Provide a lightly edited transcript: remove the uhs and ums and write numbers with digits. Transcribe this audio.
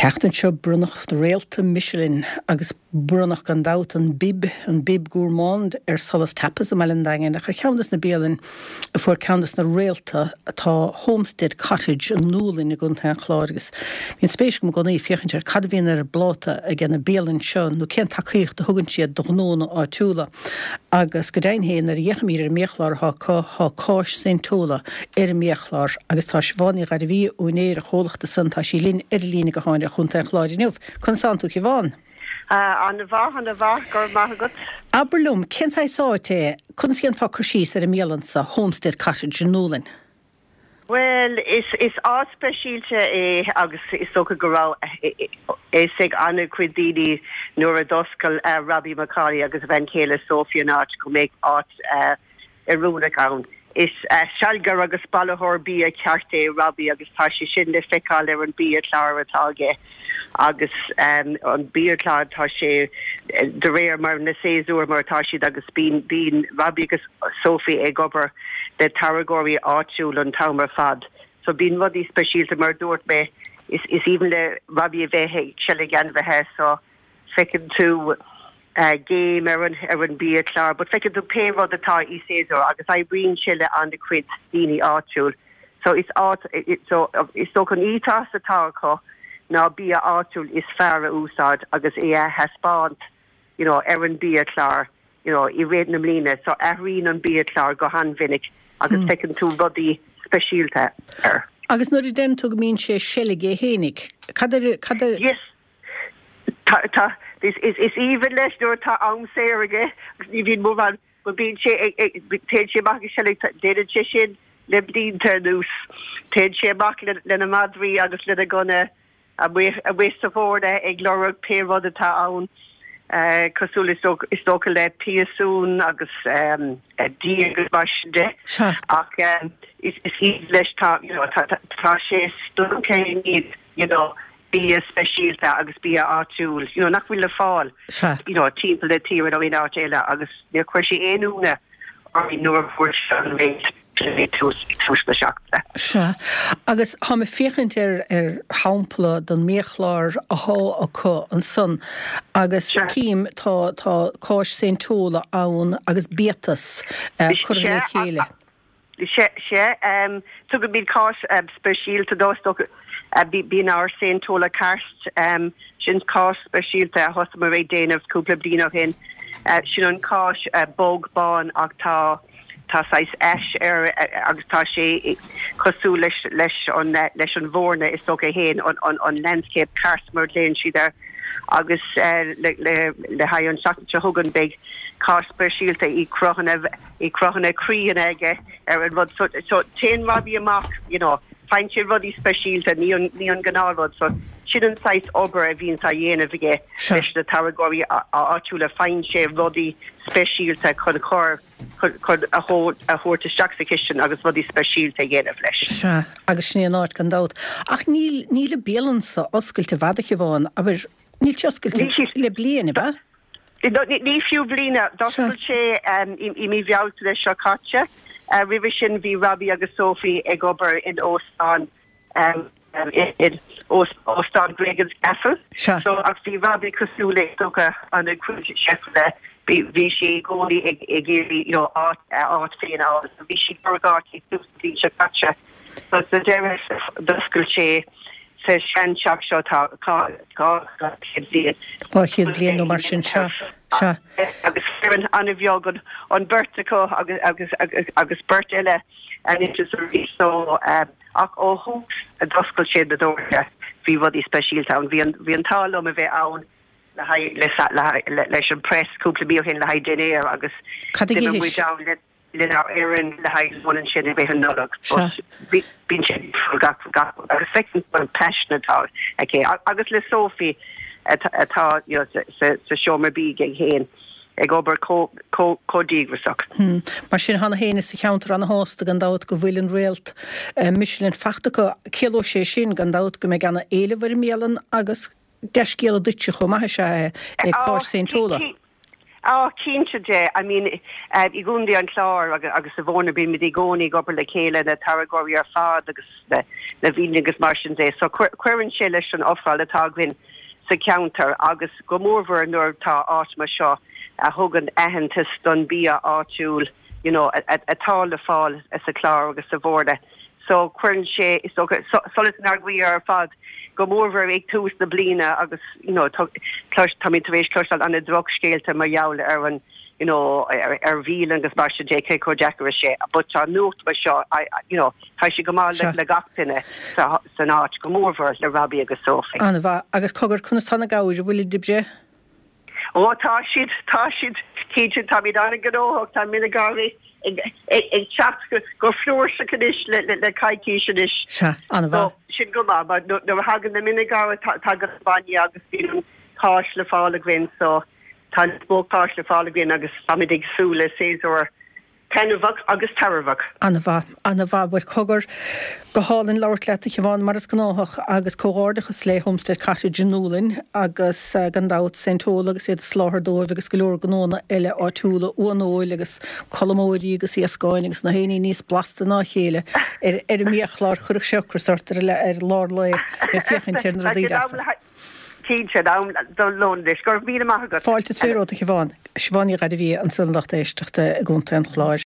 An tseachtain seo bronnadh réalta Michelin agus bronnadh gan dabht an Bib, an Bib Gourmand ar Solas Tapas i mBaile an Daingin ach ar cheann des na bialainn a fuair ceann des na réalta tá Homestead Cottage i nDúlainn i gContae an Chláir agus bíonn spéis agam i gcónaí féachaint ar cad a bhíonn ar an bpláta ag na bialainn seo nó cén tacaíocht a thugann siad do ghnónna áitiúla. Agus go deimhin féin, nuair a fhéachaimid ar an mbiachlár atá acu, tá cáis Saint Tola ar an mbiachlár agus tá Siobhán Ní Ghairbhí, úinéir an chomhlachta san, tá sí linn ar an líne gutháin ó Chontae an Chláir inniu. Conas tánn tú, Siobhán? An-mhaith, an-mhaith, go raibh maith agat. Abair liom, cén saghas áit é, conas a dhéanfá cur síos ar an mbialann so, Homestead Cottage i nDúlainn? Bhuel, is is áit speisialta é agus is dócha go raibh a fhios ag an-chuid daoine nuair a d'oscail Robbie McCauley agus a bhean chéile Sophie an áit go mbeadh áit oiriúnach ann. Is sealgaire agus bailitheoir bia ceart é Robbie agus tá sé sin le feiceáil ar an biachlár atá aige agus an biachlár tá sé de réir mar na séasúir mar atá siad agus bíonn bíonn Robbie agus Sophie ag obair le táirgeoirí áitiúil an t-am ar fad. So bíonn rudaí speisialta mar a dúirt mé is is aoibhinn le Robbie a bheith ag seilg ainmhithe so feiceann tú géim ar an ar an biachlár but feiceann tú pé rud atá i séasúr agus oibríonn sé le an-chuid daoine áitiúil so is áit so is dócha an ethos atá acu ná bia áitiúil is fearr a úsáid agus é a thaispeáint you know ar an biachlár you know i rith na mbliana so athraíonn an biachlár go han-mhinic agus feiceann tú rudaí speisialta air. Agus nuair a deireann tú go mbíonn sé ag seilg é fhéinig, cad ar cad ar. Yes. Tá, tá, is, is, is aoibhinn leis nuair atá am saor aige agus ní bhíonn mórán, but bíonn sé ag, ag, téann sé amach ag seilg, déanann sé sin le blianta anuas. Téann sé amach le, lena madraí agus lena gunna amuigh, amuigh sa bhfoirne ag lorg pé rud atá ann, cosúil is dócha, is dócha le piasún agus díog agus mar sin de. Sea. Ach is, is aoibhinn leis, tá, you know, tá, tá, tá sé stiúgtha i ndiaidh, you know, bia speisialta agus bia áitiúil, you know, nach bhfuil le fáil, you know, timpeall na tíre nó in áit eile agus níor chuir sé aon ionadh orainn nuair a fuair sé an réalta ag tús, ag tús na seachtaine. Sea. Agus táim ag féachaint ar, ar shampla den mbiachlár athá acu ansan agus cím, tá, tá cáis Saint Tola ann agus biatas curtha le chéile. Sea, sea. Tugaimid cáis speisialta dó, is dócha. Bíonn ár Saint Tola Karst, sin cáis speisialta a thosaíomar ag déanamh cúpla bliain ó shin. Sin an cáis bog bán ach tá tá saghas ash air agus tá sé cosúil leis leis an leis an bhfoirne is dócha é féin, an an landscape karst mar a ghlaonn siad air. Agus le le le haghaidh an tseachtain seo chugainn beidh cáis speisialta i cruthanna i cruthanna croíanna aige ar an rud so so téann Robbie amach you know faigheann sé rudaí speisialta ní an ní an gnáthrud so sin an saghas obair a bhíonns á dhéanamh aige leis na táirgeoirí áitiúla faigheann sé rudaí speisialta chun chur chun chun a a thabhairt isteach sa chistin agus rudaí speisialta a dhéanamh leis. Sea, agus sin é an áit gan dabht. Ach níl níl an bialann so oscailte i bhfad a Shiobhán, abair níl sé oscailte le bliain, ab ea? Ní fiú bliain. D'oscail sé i mí Bhealtaine seo caite. Roimhe sin bhí Robbie agus Sophie ag obair in óstán in Óstán Gregans Castle. So ach bhí Robbie cosúil le is dócha an-chuid cheifanna bhí sé i gcónaí ag iarraidh you know áit a áit féin a fháil. So bhí sé ag lorg áit ag tús na bliana seo caite. So sa deireadh d'oscail sé sa seanteach seo atá 200 bliain. 200 bliain nó mar sin, sea, sea. Agus foireann an-bheag an bheirt acu agus agus beirt eile anois is arís so ach ó thús a d'oscail siad na doirse bhí rudaí speisialta ann. Bhí an bhí an t-ádh liom a bheith ann le haghaidh leis an press cúpla mí ó shin le haghaidh dinnéar agus d'imigh muid ann le lenár bhfoireann le haghaidh lón ansin i rith an Nollag. But bíonn sé difriúil gach gach agus feiceann tú an paisean atá aici agus le Sophie atá you know sa sa seomra bídh aige féin ag obair chomh chomh chomh díograiseach. Mar sin tá na héinne sa cheantar ana-shásta gan dabht go bhfuil an réalt Michelin fachta acu. Ciallóidh sé sin gan dabht go mbeidh ana-éileamh ar an mbialann agus dea-scéala duitse chomh maith is ea é, é cáis Saint Tola. Á, cinnte de. I mean, i gContae an Chláir agus sa Bhóirne bímid i gcónaí ag obair le chéile, na táirgeoirí ar fad agus na bialanna agus mar sin de. So cuireann sé leis an ofráil atá againn sa cheantar agus go mórmhór nuair atá áit mar seo a thugann aitheantas don bia áitiúil you know atá le fáil sa Chlár agus sa Bhoirne. So cuireann sé is dócha solas inár gcroí ar fad go mórmhór ag tús na bliana agus you know táimid tar éis cloisteáil ana drochscéalta mar gheall ar an you know ar bhialanna agus mar sin de cé chomh deacair is sé but tá nuacht mar seo you know tá sé go maith le gach duine san áit go mórmhór le Robbie agus Sophie. An-mhaith. Agus cogar, conas tá na gabhair, an bhfuilid ag breith? Ó tá siad, tá siad, cinnte, táimid an-ghnóthach, tá mine gabhair ag teacht go flúirseach anois le coicís anois. Sea, an-mhaith. So, sin go maith, mar nuair a thagann na mine gabhair tagann an bainne agus bíonn an cáis le fáil againn, so tá níos mó cáis le fáil againn agus táimid ag súil le séasúr Taitneamhach agus tairbheach. An-mhaith, an-mhaith. Bhuel, cogar, go hálainn labhairt leat, a Shiobhán, mar is gnáthach, agus comhghairdeachas le Homestead Cottage i nDúlainn agus, gan dabht, Saint Tola agus iad ag soláthar dóibh agus go leor gnónna eile áitiúla, uan óil agus colmóirí agus iascáin agus na haon ní níos blasta ná a chéile ar an mbiachlár. Chuirfeadh sé ocras ort ar lár lae ag féachaint ar na rudaí deasa. Cinnte, in am don lón anois. Go raibh míle maith agat. Fáilte is romhat, a Shiobhán. Siobhán Ní Ghairbhia ansan, lucht éisteachta i gContae an Chláir.